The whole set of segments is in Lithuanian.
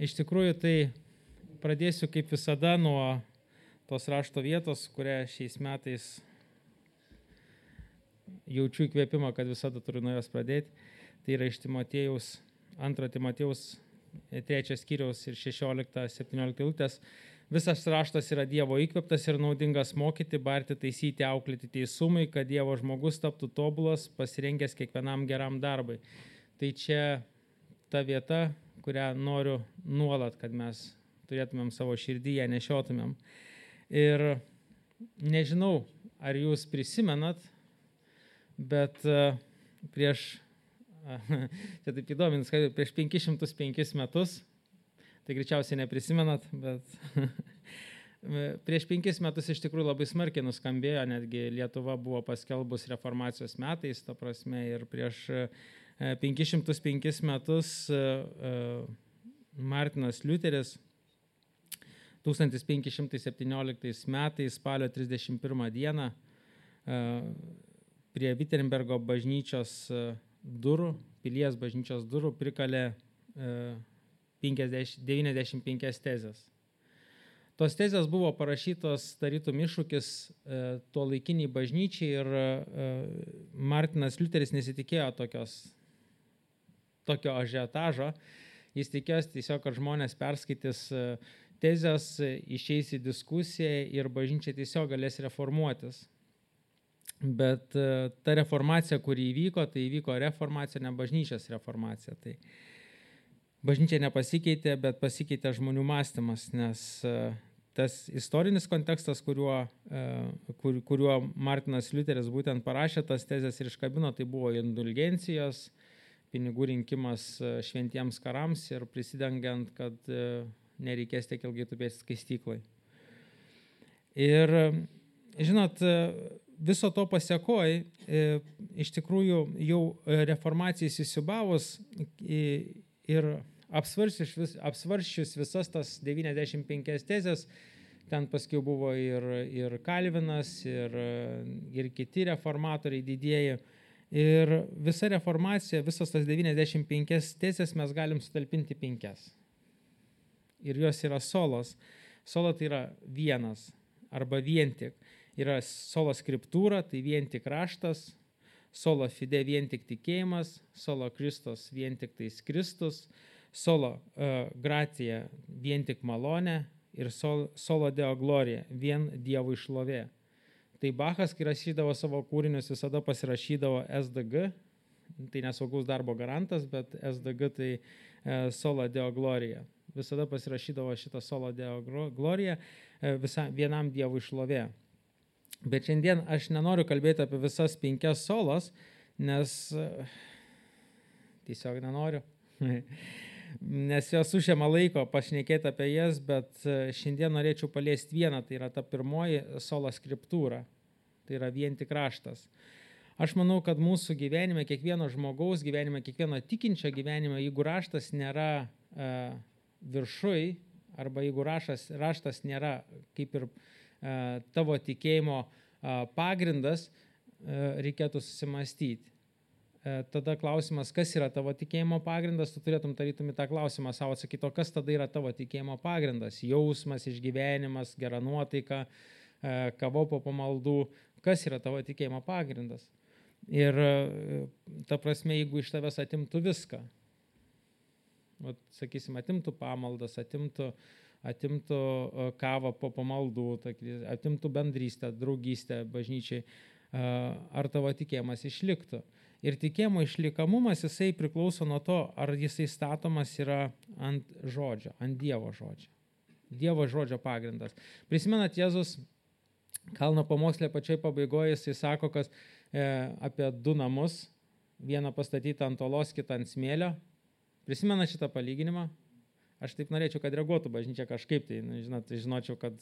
Iš tikrųjų, tai pradėsiu kaip visada nuo tos rašto vietos, kurią šiais metais jaučiu įkvėpimą, kad visada turiu nuo jos pradėti. Tai yra iš Timotiejaus, 2 Timotiejaus 3 skyriaus ir 16-17 eilutės. Visas raštas yra Dievo įkvėptas ir naudingas mokyti, barti, taisyti, auklėti teisumui, kad Dievo žmogus taptų tobulas, pasirengęs kiekvienam geram darbui. Tai čia ta vieta, kurią noriu nuolat, kad mes turėtumėm savo širdyje, nešiotumėm. Ir nežinau, ar jūs prisimenat, bet prieš, čia taip įdomins, kad prieš 505 metus, tai greičiausiai neprisimenat, bet prieš 5 metus iš tikrųjų labai smarkiai nuskambėjo, netgi Lietuva buvo paskelbus reformacijos metais, ta prasme, ir prieš 505 metus Martinas Liuteris 1517 metais spalio 31 dieną prie Wittenbergo bažnyčios durų, pilies bažnyčios durų prikalė 95 tezės. Tos tezės buvo parašytos tarytum iššūkis tuo laikiniai bažnyčiai ir Martinas Liuteris nesitikėjo tokio ažiotažo. Jis tikėjosi tiesiog, kad žmonės perskaitys tezės, išeis į diskusiją ir bažnyčia tiesiog galės reformuotis. Bet ta reformacija, kuri įvyko, tai įvyko reformacija, ne bažnyčios reformacija. Tai bažnyčia nepasikeitė, bet pasikeitė žmonių mąstymas, nes tas istorinis kontekstas, kuriuo Martinas Liuteris būtent parašė tas tezės ir iškabino, tai buvo indulgencijos, pinigų rinkimas šventiems karams ir prisidengiant, kad nereikės tiek ilgai tupėti skaistyklai. Ir, žinot, viso to pasekoj, iš tikrųjų jau reformacijai įsisiūbavus ir apsvarsčius visas tas 95 tezės, ten paskui buvo ir Kalvinas, ir kiti reformatoriai didieji. Ir visa reformacija, visas tas 95 tezės mes galim sutalpinti 5. Ir jos yra solos. Solo tai yra vienas arba vien tik. Yra sola scriptūra, tai vien tik raštas, sola fide vien tik tikėjimas, sola Kristus vien tik tais Kristus, sola gratia vien tik malonė ir sola deo gloria vien Dievo šlovė. Tai Bachas, kai rašydavo savo kūrinius, visada pasirašydavo SDG, tai nesaugaus darbo garantas, bet SDG tai sola deo gloria. Visada pasirašydavo šitą sola deo gloria vienam Dievui šlovė. Bet šiandien aš nenoriu kalbėti apie visas 5 solas, nes tiesiog nenoriu. Nes jos užima laiko pašnekėti apie jas, bet šiandien norėčiau paliesti vieną, tai yra ta pirmoji sola scriptūra, tai yra vien tik raštas. Aš manau, kad mūsų gyvenime, kiekvieno žmogaus gyvenime, kiekvieno tikinčio gyvenime, jeigu raštas nėra viršui, arba jeigu raštas nėra kaip ir tavo tikėjimo pagrindas, reikėtų susimastyti. Tada klausimas, kas yra tavo tikėjimo pagrindas, tu turėtum tarytum į tą klausimą savo atsakyti, o kas tada yra tavo tikėjimo pagrindas? Jausmas, išgyvenimas, gera nuotaika, kava po pamaldų, kas yra tavo tikėjimo pagrindas? Ir ta prasme, jeigu iš tavęs atimtų viską, sakysim, atimtų pamaldas, atimtų kavą po pamaldų, atimtų bendrystę, draugystę bažnyčiai, ar tavo tikėjimas išliktų? Ir tikėjimo išlikamumas, jisai priklauso nuo to, ar jisai statomas yra ant žodžio, ant Dievo žodžio. Dievo žodžio pagrindas. Prisimenat, Jėzus kalno pamokslė pačioj pabaigoje, jisai sako, kad apie 2 namus, vieną pastatytą ant olos, kitą ant smėlio. Prisimenat šitą palyginimą? Aš taip norėčiau, kad reaguotų bažnyčia kažkaip, tai žinočiau, kad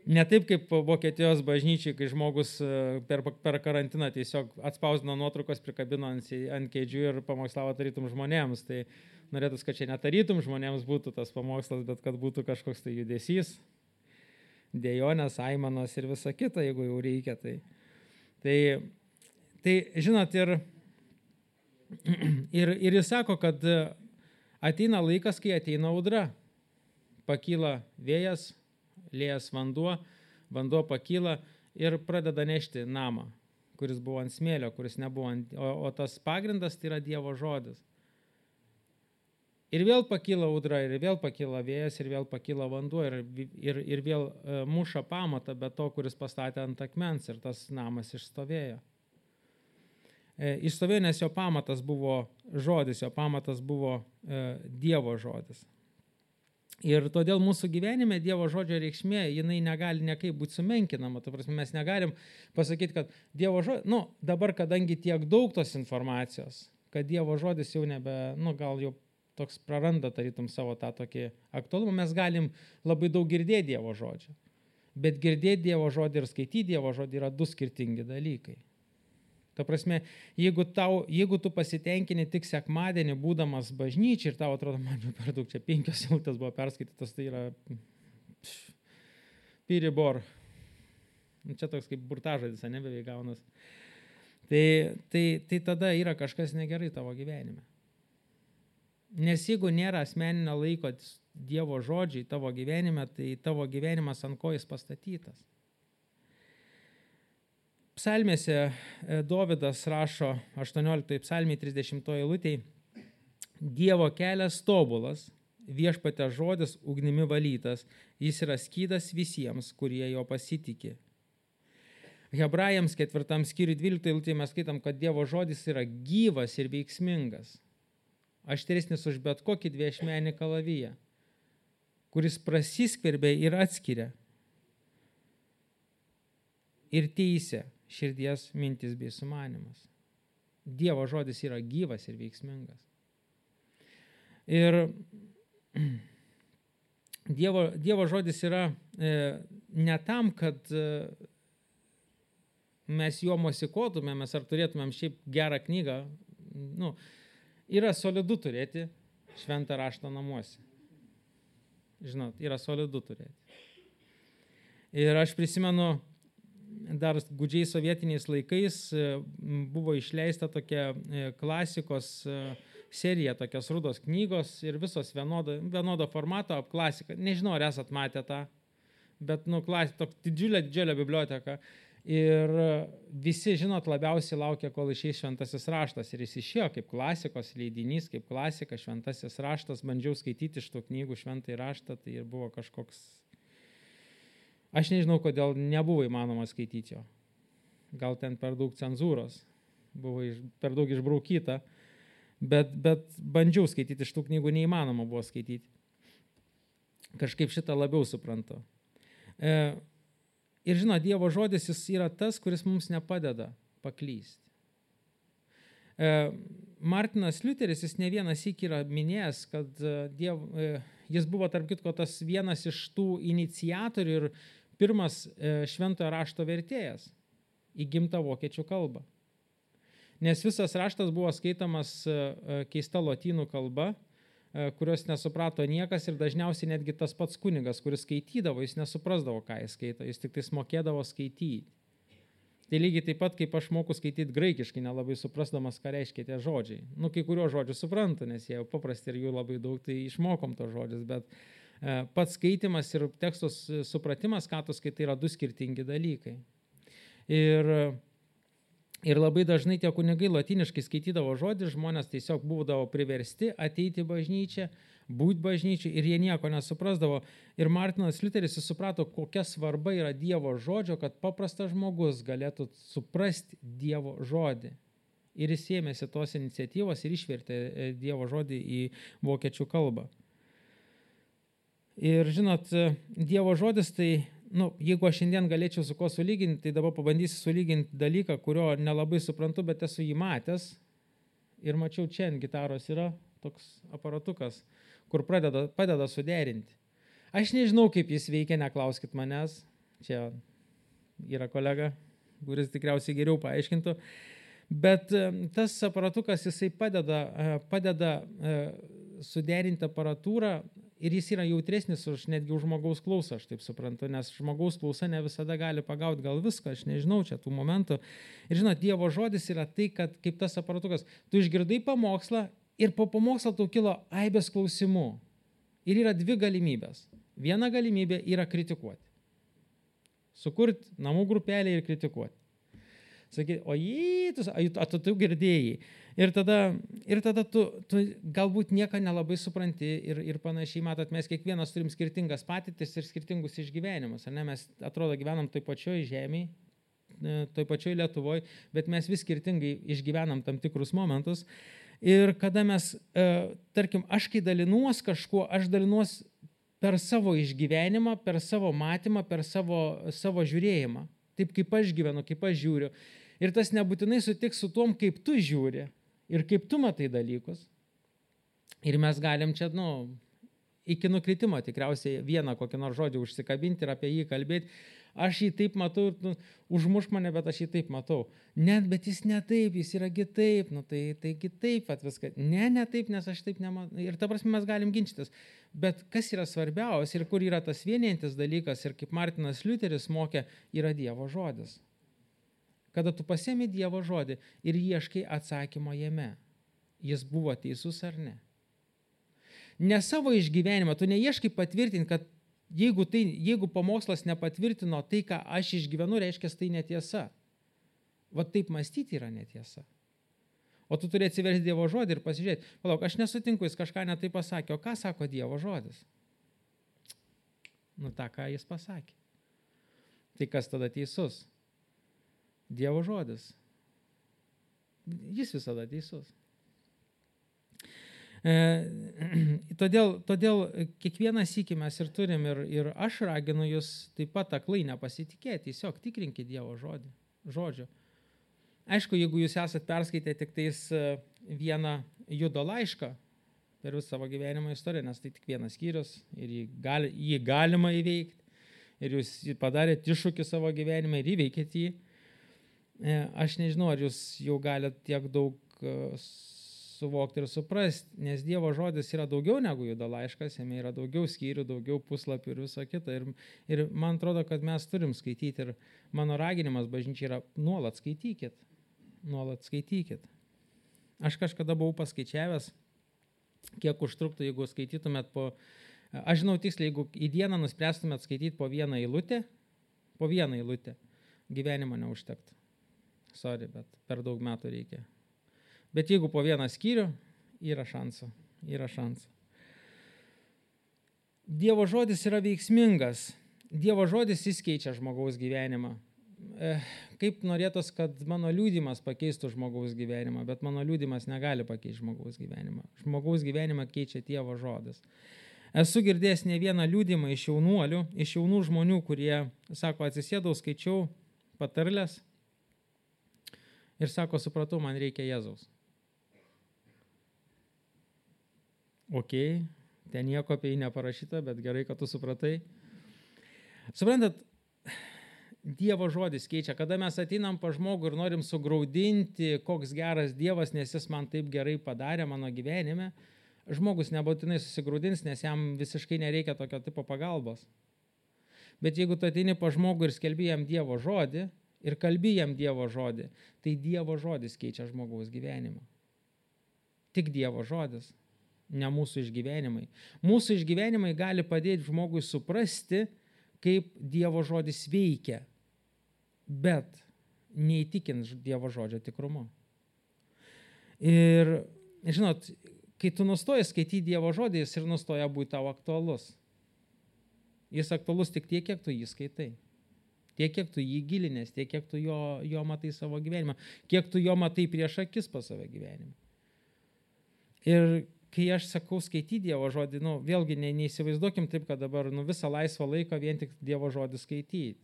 ne taip kaip Vokietijos bažnyčiai, kai žmogus per karantiną tiesiog atspausdino nuotraukos, prikabino ant kėdžių ir pamokslavo tarytum žmonėms. Tai norėtųs, kad čia netarytum žmonėms būtų tas pamokslas, bet kad būtų kažkoks tai judesys, dėjonės, aimanos ir visa kita, jeigu jau reikia. Tai žinot, ir jis sako, kad Ateina laikas, kai ateina audra. Pakyla vėjas, liejas vanduo pakyla ir pradeda nešti namą, kuris buvo ant smėlio, kuris nebuvo o tas pagrindas tai yra Dievo žodis. Ir vėl pakyla audra, ir vėl pakyla vėjas, ir vėl pakyla vanduo, ir vėl muša pamatą, bet to, kuris pastatė ant akmens, ir tas namas išstovėjo. Išstovėjo, nes jo pamatas buvo žodis, jo pamatas buvo Dievo žodis. Ir todėl mūsų gyvenime Dievo žodžio reikšmė, jinai negali niekaip būti sumenkinama. Ta prasme, mes negalim pasakyti, kad Dievo žodis, dabar, kadangi tiek daug tos informacijos, kad Dievo žodis jau nebe, gal jau toks praranda tarytum savo tą tokį aktualumą, mes galim labai daug girdėti Dievo žodžio. Bet girdėti Dievo žodį ir skaityti Dievo žodį yra du skirtingi dalykai. Ta prasme, jeigu tu pasitenkini tik sekmadienį būdamas bažnyčiai ir tau atrodo, man jau per daug, čia 5 eilutės buvo perskaitytas, tai yra piribor. Čia toks kaip burtažodis, beveik gaunas. Tai tada yra kažkas negerai tavo gyvenime. Nes jeigu nėra asmeninio laiko Dievo žodžiai tavo gyvenime, tai tavo gyvenimas ant ko jis pastatytas. Psalmėse Dovydas rašo 18 psalmėje 30 eilutėje: Dievo kelias tobulas, viešpatė žodis ugnimi valytas, jis yra skydas visiems, kurie jo pasitikė. Hebrajams 4 skyriui 12 eilutėje mes skaitam, kad Dievo žodis yra gyvas ir veiksmingas, aštresnis už bet kokį dviašmenį kalaviją, kuris prasiskverbia ir atskiria ir teisia širdies mintis bei sumanimas. Dievo žodis yra gyvas ir veiksmingas. Ir Dievo žodis yra ne tam, kad mes juo mosikuotumėmės ar turėtumėm šiaip gerą knygą. Yra solidu turėti šventą raštą namuose. Žinot, yra solidu turėti. Ir aš prisimenu, dar gūdžiai sovietiniais laikais buvo išleista tokia klasikos serija, tokios rudos knygos ir visos vienodo formato klasika. Nežinau, ar esat matę tą, bet tokia didžiulė biblioteka. Ir visi, žinot, labiausiai laukia, kol išeis šventasis raštas. Ir jis išėjo kaip klasikos leidinys, kaip klasika, šventasis raštas. Bandžiau skaityti iš tų knygų šventąjį raštą, tai ir buvo kažkoks... Aš nežinau, kodėl nebuvo įmanoma skaityti jo. Gal ten per daug cenzūros, buvo per daug išbraukyta, bet bandžiau skaityti iš tų knygų, neįmanoma buvo skaityti. Kažkaip šitą labiau suprantu. Ir žinot, Dievo žodis jis yra tas, kuris mums nepadeda paklysti. Martinas Liuteris, jis ne vienas syk yra minėjęs, kad jis buvo tarp kitko tas vienas iš tų iniciatorių ir pirmas šventojo rašto vertėjas į gimtą vokiečių kalbą. Nes visas raštas buvo skaitamas keista lotynų kalba, kurios nesuprato niekas ir dažniausiai netgi tas pats kunigas, kuris skaitydavo, jis nesuprasdavo, ką jis skaito, jis tik tais mokėdavo skaityti. Tai lygiai taip pat, kaip aš moku skaityti graikiškai, nelabai suprasdamas, ką reiškia tie žodžiai. Kai kuriuos žodžius suprantu, nes jie jau paprasti ir jų labai daug, tai išmokom tos žodžius, bet pats skaitimas ir tekstos supratimas, ką tu skaitai, yra du skirtingi dalykai. Ir labai dažnai tie kunigai lotyniškai skaitydavo žodį, žmonės tiesiog būdavo priversti ateiti į bažnyčią, būti bažnyčiai ir jie nieko nesuprasdavo. Ir Martinas Liuteris suprato, kokia svarba yra Dievo žodžio, kad paprastas žmogus galėtų suprasti Dievo žodį. Ir jis ėmėsi tos iniciatyvos ir išvertė Dievo žodį į vokiečių kalbą. Ir žinot, Dievo žodis tai, jeigu aš šiandien galėčiau su ko sulyginti, tai dabar pabandysiu sulyginti dalyką, kurio nelabai suprantu, bet esu jį matęs. Ir mačiau, čia ant gitaros yra toks aparatukas, kur padeda suderinti. Aš nežinau, kaip jis veikia, neklauskit manęs. Čia yra kolega, kuris tikriausiai geriau paaiškintų. Bet tas aparatukas, jisai padeda suderinti aparatūrą ir jis yra jautresnis netgi už žmogaus klausą, aš taip suprantu, nes žmogaus klausa ne visada gali pagauti gal viską, aš nežinau čia tų momentų. Ir žinot, Dievo žodis yra tai, kad kaip tas aparatukas, tu išgirdai pamokslą Ir po pamokslo tau kilo aibės klausimų. Ir yra dvi galimybės. Viena galimybė yra kritikuoti. Sukurti namų grupelę ir kritikuoti. Sakyti, tu girdėjai. Ir tada tu galbūt nieko nelabai supranti ir panašiai, matot, mes kiekvienas turim skirtingas patirtis ir skirtingus išgyvenimus. Ne? Mes atrodo gyvenam toj pačioj žemėje, toj pačioj Lietuvoje, bet mes vis skirtingai išgyvenam tam tikrus momentus. Ir kada mes, tarkim, aš kai dalinuos kažkuo, aš dalinuos per savo išgyvenimą, per savo matymą, per savo žiūrėjimą. Taip kaip aš gyvenu, kaip aš žiūriu. Ir tas nebūtinai sutiks su tom, kaip tu žiūri ir kaip tu matai dalykus. Ir mes galim čia, iki nukritimo tikriausiai vieną kokį nors žodį užsikabinti ir apie jį kalbėti. Aš jį taip matau, užmušk mane, bet aš jį taip matau. Net, bet jis ne taip, jis yra kitaip, tai kitaip viską. Ne taip, nes aš taip nematau. Ir ta prasme mes galim ginčytis. Bet kas yra svarbiausia ir kur yra tas vienijantis dalykas ir kaip Martinas Liuteris mokė, yra Dievo žodis. Kada tu pasiemi Dievo žodį ir ieškai atsakymo jame, jis buvo teisus ar ne. Ne savo išgyvenimą, tu neieškai patvirtinti, kad jeigu pamokslas nepatvirtino tai, ką aš išgyvenu, reiškia, tai netiesa. Va taip mąstyti yra netiesa. O tu turi atsiversti Dievo žodį ir pasižiūrėti, palauk, aš nesutinku, jis kažką netai pasakė, o ką sako Dievo žodis? Ta, ką jis pasakė. Tai kas tada teisus? Dievo žodis. Jis visada teisus. Todėl kiekvieną sykį mes ir turim ir aš raginu jūs taip pat aklai nepasitikėti, tiesiog tikrinkite Dievo žodžio. Aišku, jeigu jūs esat perskaitę tik tais vieną Judo laišką per visą savo gyvenimo istoriją, nes tai tik vienas skyrius ir jį galima įveikti ir jūs padarėte iššūkį savo gyvenime ir įveikėte jį, aš nežinau, ar jūs jau galite tiek daug suvokti ir suprasti, nes Dievo žodis yra daugiau negu Judo laiškas, jame yra daugiau skyrių, daugiau puslapių ir viso kita. Ir man atrodo, kad mes turim skaityti ir mano raginimas bažnyčiai yra nuolat skaitykit. Aš kažkada buvau paskaičiavęs, kiek užtruktų, jeigu skaitytumėt aš žinau tiksliai, jeigu į dieną nuspręstumėt skaityti po vieną eilutę, gyvenimo neužtektų. Sorry, bet per daug metų reikia. Bet jeigu po vieną skyrių, yra šansų. Dievo žodis yra veiksmingas. Dievo žodis jis keičia žmogaus gyvenimą. Kaip norėtos, kad mano liudijimas pakeistų žmogaus gyvenimą, bet mano liudijimas negali pakeisti žmogaus gyvenimą. Žmogaus gyvenimą keičia Dievo žodis. Esu girdėjęs ne vieną liudijimą iš jaunuolių, iš jaunų žmonių, kurie, sako, atsisėdau, skaičiau patarles ir sako, supratau, man reikia Jėzaus. Ok, ten nieko apie jį neparašyta, bet gerai, kad tu supratai. Suprantat, Dievo žodis keičia. Kada mes ateinam pa žmogų ir norim sugraudinti, koks geras Dievas, nes jis man taip gerai padarė mano gyvenime, žmogus nebūtinai susigraudins, nes jam visiškai nereikia tokio tipo pagalbos. Bet jeigu tu ateini pa žmogų ir skelbi jam Dievo žodį ir kalbi jam Dievo žodį, tai Dievo žodis keičia žmogaus gyvenimą. Tik Dievo žodis, ne mūsų išgyvenimai. Mūsų išgyvenimai gali padėti žmogui suprasti, kaip Dievo žodis veikia, bet neįtikins Dievo žodžio tikrumu. Ir, žinot, kai tu nustoji skaityti Dievo žodį, jis ir nustoja būti tau aktualus. Jis aktualus tik tiek, kiek tu jį skaitai. Tiek, kiek tu jį gilinės, tiek, kiek tu jo matai savo gyvenimą, kiek tu jo matai prieš akis pas savo gyvenimą. Ir kai aš sakau skaityti Dievo žodį, vėlgi neįsivaizduokim taip, kad dabar visą laisvą laiką vien tik Dievo žodį skaityti.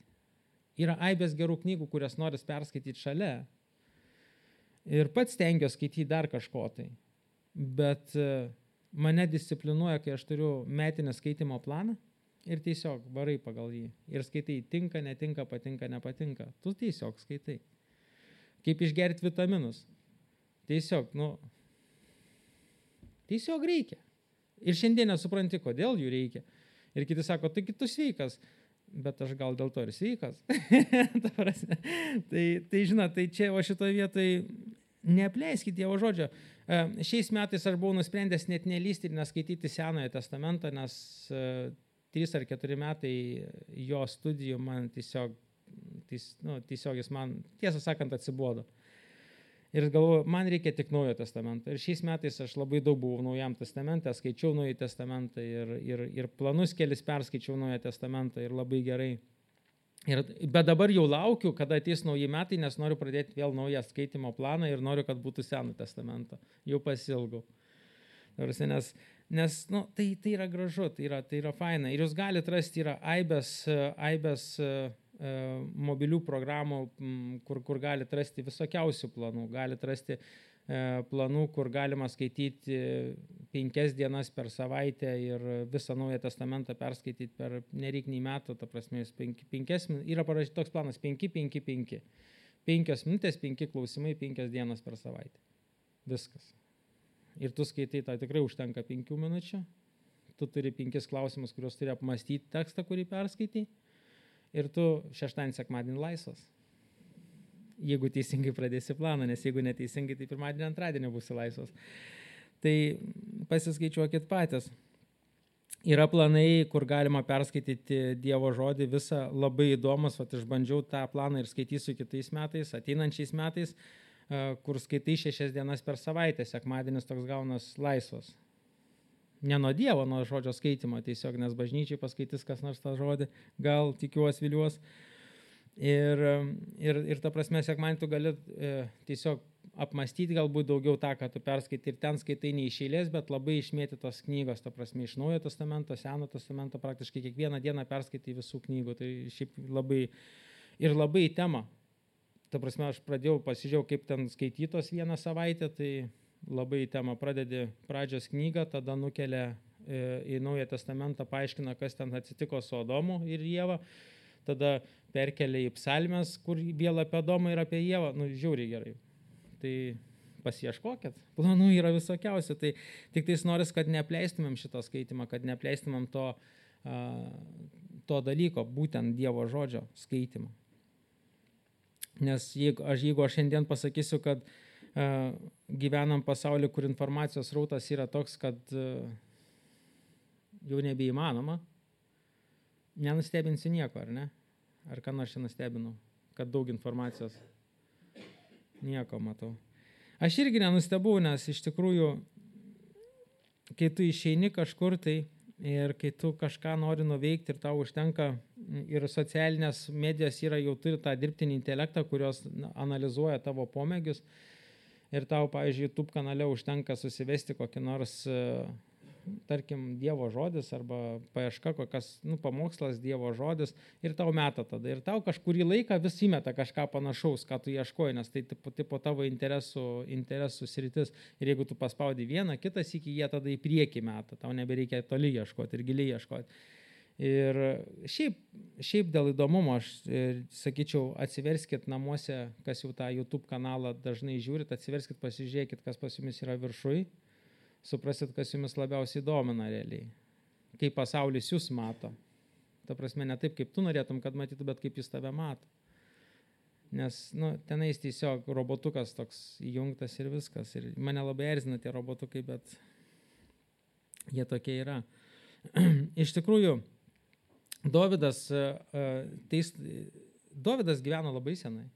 Yra aibės gerų knygų, kurias noris perskaityti šalia. Ir pats stengiuosi skaityti dar kažko tai. Bet mane disciplinuoja, kai aš turiu metinę skaitimo planą ir tiesiog varai pagal jį. Ir skaitai tinka, netinka, patinka, nepatinka. Tu tiesiog skaitai. Kaip išgerti vitaminus. Tiesiog reikia. Ir šiandien nesupranti, kodėl jų reikia. Ir kiti sako, tai tu sveikas. Bet aš gal dėl to ir sveikas. Tai žinot, tai čia, o šitoje vietoje neapleiskit Dievo žodžio. Šiais metais aš buvau nusprendęs net nelysti ir neskaityti Senojo testamento, nes 3 ar 4 metai jo studijų man tiesiog jis man, tiesą sakant, atsibodo. Ir galvoju, man reikia tik Naujo testamento. Ir šiais metais aš labai daug buvau Naujam testamente, skaičiau Naują testamentą ir planus kelis perskaičiau Naują testamentą ir labai gerai. Bet dabar jau laukiu, kada ateis nauji metai, nes noriu pradėti vėl naują skaitimo planą ir noriu, kad būtų Seno testamento. Jau pasilgau. Nes tai yra gražu, tai yra faina. Ir jūs galite rasti, yra aibės mobilių programų, kur galite rasti visokiausių planų. Galite rasti planų, kur galima skaityti 5 dienas per savaitę ir visą Naują testamentą perskaityti per nereiknį metų, ta prasme, yra parašyti toks planas 5-5-5. 5 minutės, 5 klausimai, 5 dienas per savaitę. Viskas. Ir tu skaitai, tai tikrai užtenka 5 minučių. Tu turi 5 klausimus, kuriuos turi apmastyti tekstą, kurį perskaitai. Ir tu šeštadienį, sekmadienį laisvas. Jeigu teisingai pradėsi planą, nes jeigu neteisingai, tai pirmadienį, antradienį būsi laisvas. Tai pasiskaičiuokit patys. Yra planai, kur galima perskaityti Dievo žodį visą, labai įdomus, išbandžiau tą planą ir skaitysiu kitais metais, ateinančiais metais, kur skaitai 6 dienas per savaitę, sekmadienis toks gaunas laisvas. Ne nuo Dievo, nuo žodžio skaitimo, tiesiog, nes bažnyčiai paskaitys kas nors tą žodį, gal tikiuos, viliuos. Ir ta prasme, sekmadienį tu gali tiesiog apmastyti galbūt daugiau tą, ką tu perskaitai. Ir ten skaitai ne iš eilės, bet labai išmėtytos knygos, ta prasme, iš Naujojo testamento, Seno testamento, praktiškai kiekvieną dieną perskaitai visų knygų. Tai šiaip labai į temą. Ta prasme, aš pasižiūrėjau, kaip ten skaitytos vieną savaitę, tai labai į temą. Pradedi pradžios knygą, tada nukelia į Naują testamentą, paaiškina, kas ten atsitiko su Adomu ir Ieva. Tada perkelia į psalmes, kur vėl apie Adomą ir apie Ievą. Žiauriai gerai. Tai pasiieškokit. Planų yra visokiausių. Tai tik tais noris, kad neapleistumėm šito skaitimą, kad neapleistumėm to dalyko, būtent Dievo žodžio skaitimo. Nes jeigu aš šiandien pasakysiu, kad gyvenam pasaulyje, kur informacijos srautas yra toks, kad jau nebeįmanoma, nenustebinsiu nieko, ar ne? Ar ką nors čia nustebinau, kad daug informacijos? Nieko matau. Aš irgi nenustebau, nes iš tikrųjų, kai tu išeini kažkur tai ir kai tu kažką nori nuveikti ir tau užtenka, ir socialinės medijos jau turi tą dirbtinį intelektą, kurios analizuoja tavo pomėgius, ir tau, pavyzdžiui, YouTube kanale užtenka susivesti kokį nors, tarkim, Dievo žodis arba paieška kokias, pamokslas Dievo žodis ir tau meta tada. Ir tau kažkurį laiką vis įmeta kažką panašaus, ką tu ieškoji, nes tai tipo tavo interesų sritis. Ir jeigu tu paspaudi vieną, kitas iki jie tada į priekį meta, tau nebereikia toli ieškoti ir giliai ieškoti. Ir šiaip dėl įdomumo aš sakyčiau, atsiverskit namuose, kas jau tą YouTube kanalą dažnai žiūrit, atsiverskit, pasižiūrėkit, kas pas jumis yra viršui. Suprasit, kas jumis labiausiai domina realiai. Kaip pasaulis jūs mato. Ta prasme, ne taip, kaip tu norėtum, kad matytų, bet kaip jis tave mato. Nes, tenais tiesiog robotukas toks įjungtas ir viskas. Ir mane labai erzina tie robotukai, bet jie tokie yra. Iš tikrųjų, Dovydas gyveno labai senai.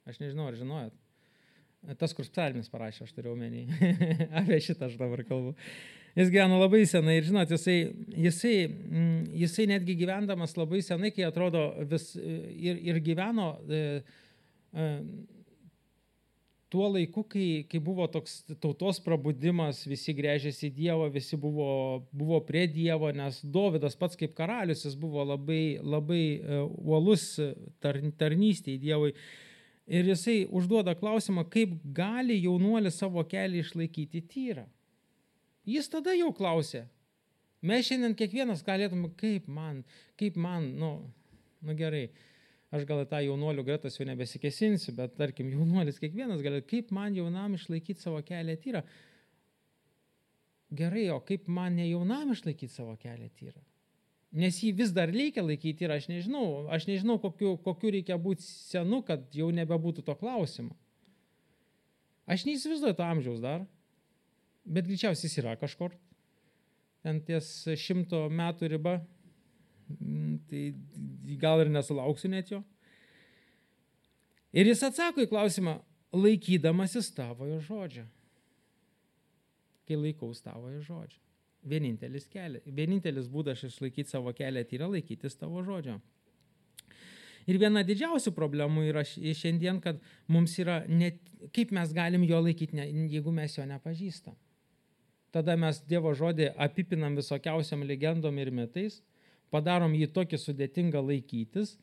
Aš nežinau, ar žinojot. Tas, kur psalmis parašė, aš turiu omeny. Apie šitą aš dabar kalbu. Jis gyveno labai senai ir, žinot, jisai netgi gyvendamas labai senai, kai atrodo ir gyveno tuo laiku, kai buvo toks tautos prabudimas, visi gręžėsi į Dievą, visi buvo prie Dievo, nes Dovydas pats kaip karalius, jis buvo labai uolus tarnystėje Dievui. Ir jisai užduoda klausimą, kaip gali jaunuolis savo kelią išlaikyti tyrą. Jis tada jau klausė. Mes šiandien kiekvienas galėtume, kaip man, gerai, aš gal tą jaunuolių gretas jau nebesikesinsiu, bet tarkim, jaunuolis kiekvienas galėtų, kaip man jaunam išlaikyti savo kelią tyrą. Gerai, o kaip man ne jaunam išlaikyti savo kelią tyrą? Nes jį vis dar reikia laikyti ir aš nežinau kokiu reikia būti senu, kad jau nebebūtų to klausimo. Aš neįsivaizduoju to amžiaus dar, bet greičiausiai jis yra kažkur. Ten ties 100 metų riba, tai gal ir nesulauksiu net jo. Ir jis atsako į klausimą, laikydamasis tavojo žodžio. Kai laikaus tavojo žodžio. Vienintelis būdas išlaikyti savo kelią tai yra laikytis tavo žodžio. Ir viena didžiausių problemų yra šiandien, kad mums yra, kaip mes galim jo laikyti, jeigu mes jo nepažįstam. Tada mes Dievo žodį apipinam visokiausiam legendom ir mitais, padarom jį tokį sudėtingą laikytis,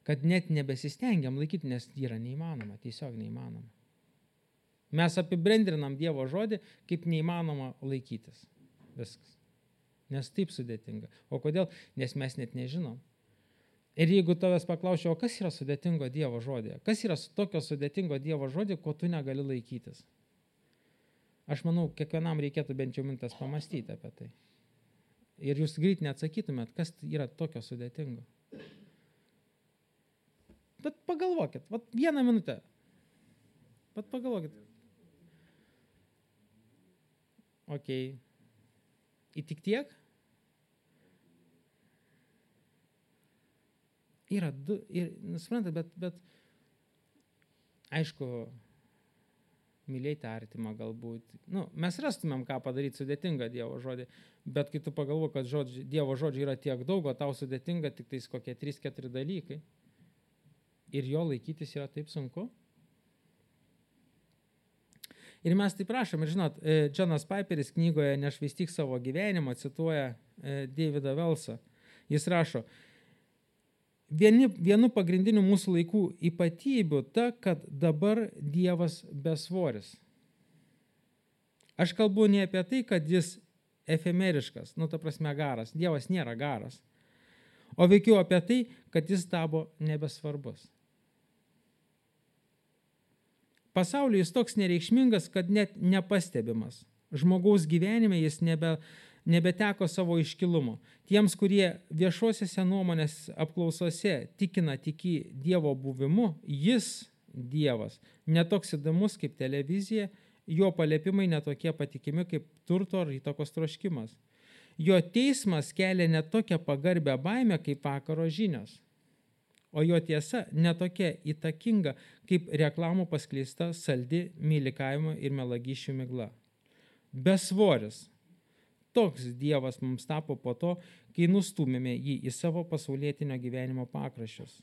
kad net nebesistengiam laikyti, nes yra neįmanoma, tiesiog neįmanoma. Mes apibendrinam Dievo žodį, kaip neįmanoma laikytis. Viskas. Nes taip sudėtinga. O kodėl? Nes mes net nežinom. Ir jeigu tavęs paklausčiau, o kas yra sudėtingo Dievo žodėje? Kas yra tokio sudėtingo Dievo žodėje, ko tu negali laikytis? Aš manau, kiekvienam reikėtų bent jau mintas pamastyti apie tai. Ir jūs greit neatsakytumėt, kas yra tokio sudėtingo. Bet pagalvokit, vieną minutę. Bet pagalvokit. Okei. Į tik tiek? Yra du, suprantate, bet aišku, mylėti artimą galbūt. Mes rastumėm, ką padaryti sudėtingą Dievo žodį, bet kai tu pagalvoji, kad Dievo žodžių yra tiek daug, o tau sudėtinga tik tais kokie 3-4 dalykai, ir jo laikytis yra taip sunku. Ir mes taip prašom, ir žinot, Džonas Piperis knygoje Nešvaistyk savo gyvenimo cituoja Davidą Velsą. Jis rašo, vienu pagrindinių mūsų laikų ypatybių ta, kad dabar Dievas besvoris. Aš kalbu ne apie tai, kad jis efemeriškas, ta prasme garas. Dievas nėra garas. O veikiau apie tai, kad jis tapo nebesvarbus. Pasaulyje jis toks nereikšmingas, kad net nepastebimas. Žmogaus gyvenime jis nebeteko savo iškilumo. Tiems, kurie viešosiose nuomonės apklausose tikina tiki Dievo buvimu, jis, Dievas, netoks įdomus kaip televizija, jo paliepimai netokie patikimi kaip turto ar įtakos troškimas. Jo teismas kelia netokią pagarbę baimę kaip vakaro žinios. O jo tiesa netokia įtakinga, kaip reklamų paskleista saldi mylikavimo ir melagyšių migla. Besvoris. Toks Dievas mums tapo po to, kai nustūmėme jį į savo pasaulietinio gyvenimo pakraščius.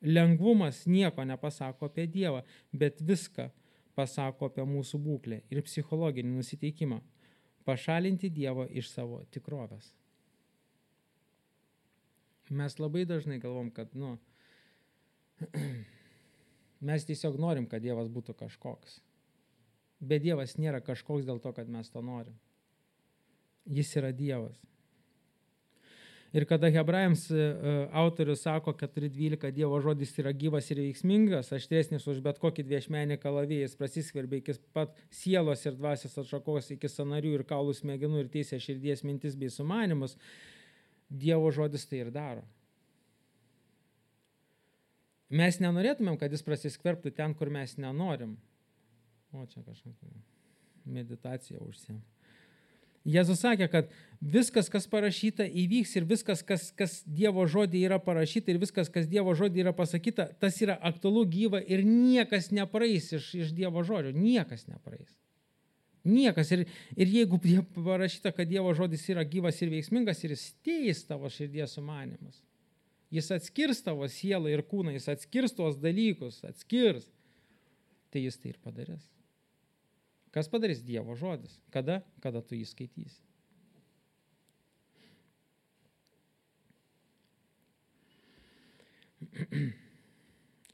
Lengvumas nieko nepasako apie Dievą, bet viską pasako apie mūsų būklę ir psichologinį nusiteikimą. Pašalinti Dievą iš savo tikrovės. Mes labai dažnai galvom, kad mes tiesiog norim, kad Dievas būtų kažkoks. Bet Dievas nėra kažkoks dėl to, kad mes to norim. Jis yra Dievas. Ir kada Hebrajams autorius sako, 4.12, Dievo žodis yra gyvas ir veiksmingas, aštresnis už bet kokį dviešmenį kalavijį, jis prasiskverbia iki pat sielos ir dvasios atšakos, iki sąnarių ir kaulų smegenų ir teisė širdies mintis bei sumanimus, Dievo žodis tai ir daro. Mes nenorėtumėm, kad jis prasiskverbtų ten, kur mes nenorim. O čia kažkokia meditacija užsiėm. Jėzus sakė, kad viskas, kas parašyta, įvyks ir viskas, kas Dievo žodį yra parašyta ir viskas, kas Dievo žodį yra pasakyta, tas yra aktualu, gyva ir niekas nepraeis iš Dievo žodžio. Niekas nepraeis. Niekas. Ir jeigu parašyta, kad Dievo žodis yra gyvas ir veiksmingas ir jis teis tavo širdies sumanymus, jis atskirs tavo sielą ir kūną, jis atskirs tuos dalykus, tai jis tai ir padarys. Kas padarys? Dievo žodis. Kada? Kada tu jį skaitysi.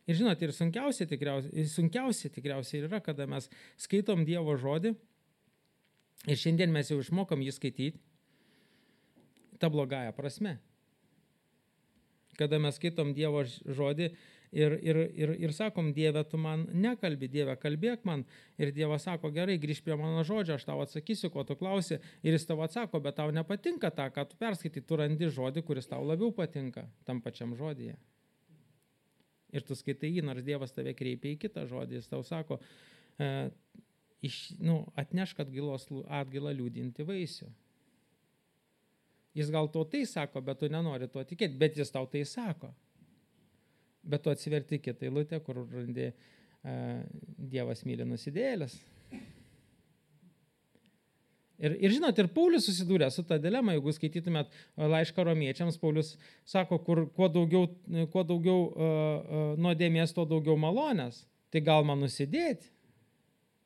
Ir žinot, ir sunkiausia tikriausiai yra, kada mes skaitom Dievo žodį ir šiandien mes jau išmokom jį skaityti ta blogąja prasme. Kada mes skaitom Dievo žodį ir sakom, Dieve, tu man nekalbi, Dieve, kalbėk man. Ir Dievas sako, gerai, grįžk prie mano žodžio, aš tau atsakysiu, ko tu klausi. Ir jis tau atsako, bet tau nepatinka tą, ką tu perskaitai, tu randi žodį, kuris tau labiau patinka tam pačiam žodyje. Ir tu skaitai jį, nors Dievas tave kreipia į kitą žodį. Jis tau sako, atnešk atgailą liūdinti vaisių. Jis gal to tai sako, bet tu nenori tuo tikėti, bet jis tau tai sako. Bet tu atsiverti kitą eilutę, kur randi Dievas myli nusidėjėles. Ir žinot, ir Paulius susidūrė su ta dilema, jeigu skaitytumėt laišką romiečiams, Paulius sako, kuo daugiau nuodėmės, tuo daugiau malonės. Tai gal man nusidėti,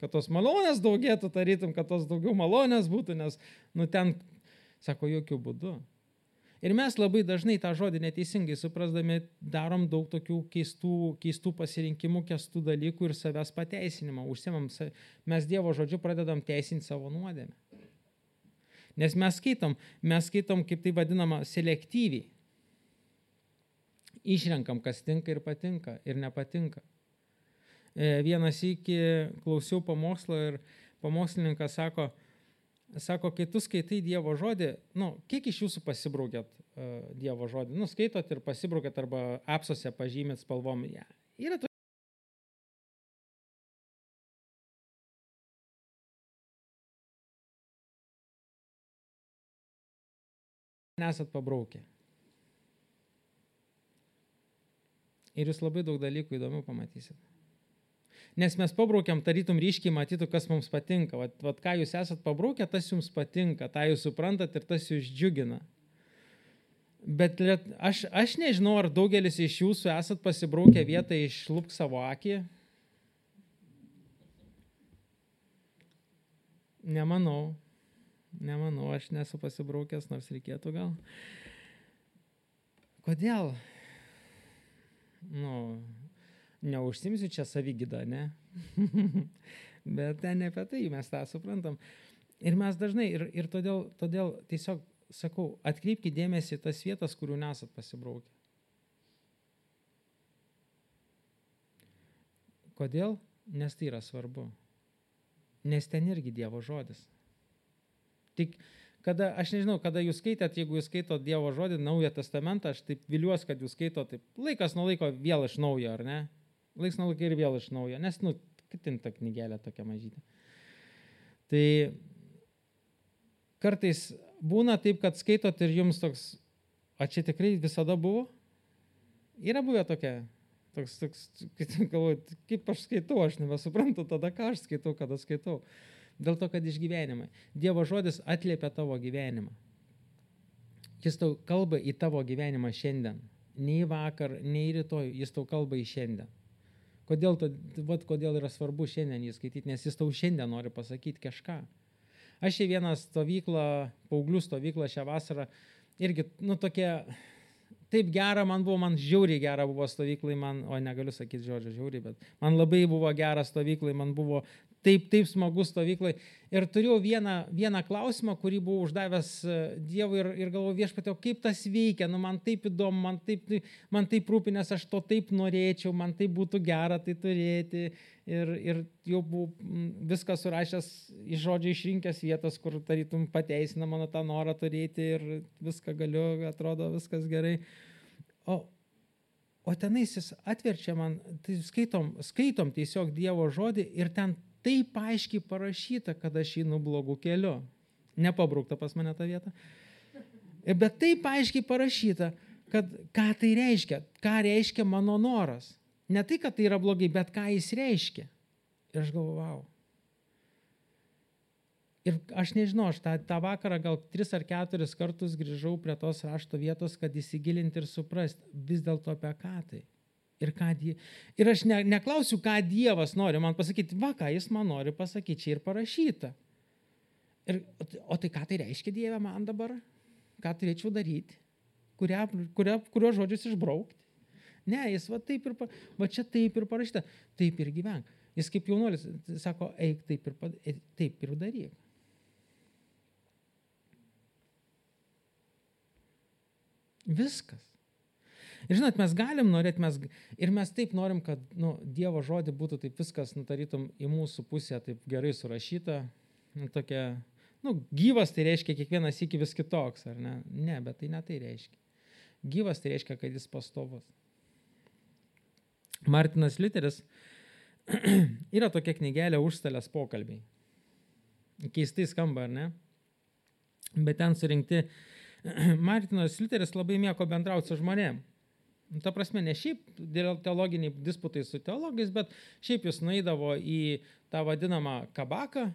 kad tos malonės daugėtų, tarytum, kad tos daugiau malonės būtų, nes ten, sako, jokių būdų. Ir mes labai dažnai tą žodį neteisingai suprasdami darom daug tokių keistų pasirinkimų, keistų dalykų ir savęs pateisinimą. Mes Dievo žodžiu pradedam teisinti savo nuodėmę. Nes mes skaitom, kaip tai vadinama, selektyviai. Išrenkam, kas tinka ir patinka ir nepatinka. Vienas iki klausiau pamokslo ir pamokslininkas sako, kai tu skaitai Dievo žodį, kiek iš jūsų pasibraukėt Dievo žodį? Skaitot ir pasibraukėt arba apsuose pažymėt spalvom. Yra to. Nesat pabraukę. Ir jūs labai daug dalykų įdomių pamatysit. Nes mes pabraukiam, tarytum ryškiai matytų, kas mums patinka. Vat ką jūs esat pabraukę, tas jums patinka, tą jūs suprantat ir tas jūs džiugina. Bet aš nežinau, ar daugelis iš jūsų esat pasibraukę vietą išlupk savo akį. Nemanau, aš nesu pasibraukęs, nors reikėtų gal. Kodėl? Neužsimsiu čia savigydą, ne? Bet ne apie tai, mes tą suprantam. Ir mes dažnai, ir todėl tiesiog sakau, atkreipkite dėmesį tas vietas, kurių nesat pasibraukę. Kodėl? Nes tai yra svarbu. Nes ten irgi Dievo žodis. Tik aš nežinau, kada jūs skaitėt, jeigu jūs skaitot Dievo žodį, Naują testamentą, aš taip viliuosi, kad jūs skaitot taip laikas nuo laiko vėl iš naujo, ar ne? Laiks nuo laiko ir vėl iš naujo, nes, kitin ta knygelė tokia mažytė. Tai kartais būna taip, kad skaitot ir jums toks, čia tikrai visada buvo? Yra buvę tokia, galvoju, kaip aš skaitau, aš nebesuprantu tada, ką aš skaitau, kada skaitau. Dėl to, kad išgyvenimai. Dievo žodis atliepia tavo gyvenimą. Jis tau kalba į tavo gyvenimą šiandien. Nei vakar, nei rytoj, jis tau kalba į šiandien. Kodėl yra svarbu šiandien jį skaityti, nes jis tau šiandien nori pasakyti kažką. Aš į vieną stovyklą, paauglių stovyklą šią vasarą, irgi, tokia, taip gera man žiauriai gera buvo stovyklai, negaliu sakyti žodžio žiauriai, bet man labai buvo gera stovyklai, man buvo taip smagu stovyklai. Ir turėjau vieną klausimą, kurį buvau uždavęs Dievui ir galvoju, Viešpatie, kaip tas veikia, man taip įdomu, man taip rūpi, nes aš to taip norėčiau, man taip būtų gera tai turėti. Ir jau buvau viską surašęs iš žodžio išrinkęs vietas, kur tarytum pateisina mano tą norą turėti ir viską galiu, atrodo viskas gerai. O tenais jis atverčia man, tai skaitom tiesiog Dievo žodį ir ten taip aiškiai parašyta, kad aš einu blogų keliu. Nepabraukta pas mane tą vietą. Bet taip aiškiai parašyta, kad ką tai reiškia, ką reiškia mano noras. Ne tai, kad tai yra blogai, bet ką jis reiškia. Ir aš galvoju, wow. Ir aš nežinau, aš tą vakarą gal 3 ar 4 kartus grįžau prie tos rašto vietos, kad įsigilinti ir suprasti vis dėlto apie ką tai. Ir aš neklausiu, ką Dievas nori man pasakyti, ką jis man nori pasakyti, čia ir parašyta. O tai ką tai reiškia Dieve man dabar? Ką turėčiau daryti? Kurio žodžius išbraukti? Ne, jis čia taip ir parašyta, taip ir gyvenk. Jis kaip jaunuolis sako, eik taip ir daryk. Viskas. Ir žinot, mes galim norėti, mes taip norim, kad Dievo žodį būtų taip viskas, tarytum į mūsų pusę taip gerai surašyta, tokia, gyvas tai reiškia kiekvienas iki vis kitoks, ar ne? Ne, bet tai ne tai reiškia. Gyvas tai reiškia, kad jis pastovus. Martinas Liuteris Yra tokia knygelė Užstalės pokalbiai. Keistai skamba, ar ne? Bet ten surinkti Martinas Liuteris labai mėgo bendrauti su žmonėm. Ta prasme, ne šiaip teologiniai disputai su teologais, bet šiaip jis nueidavo į tą vadinamą kabaką,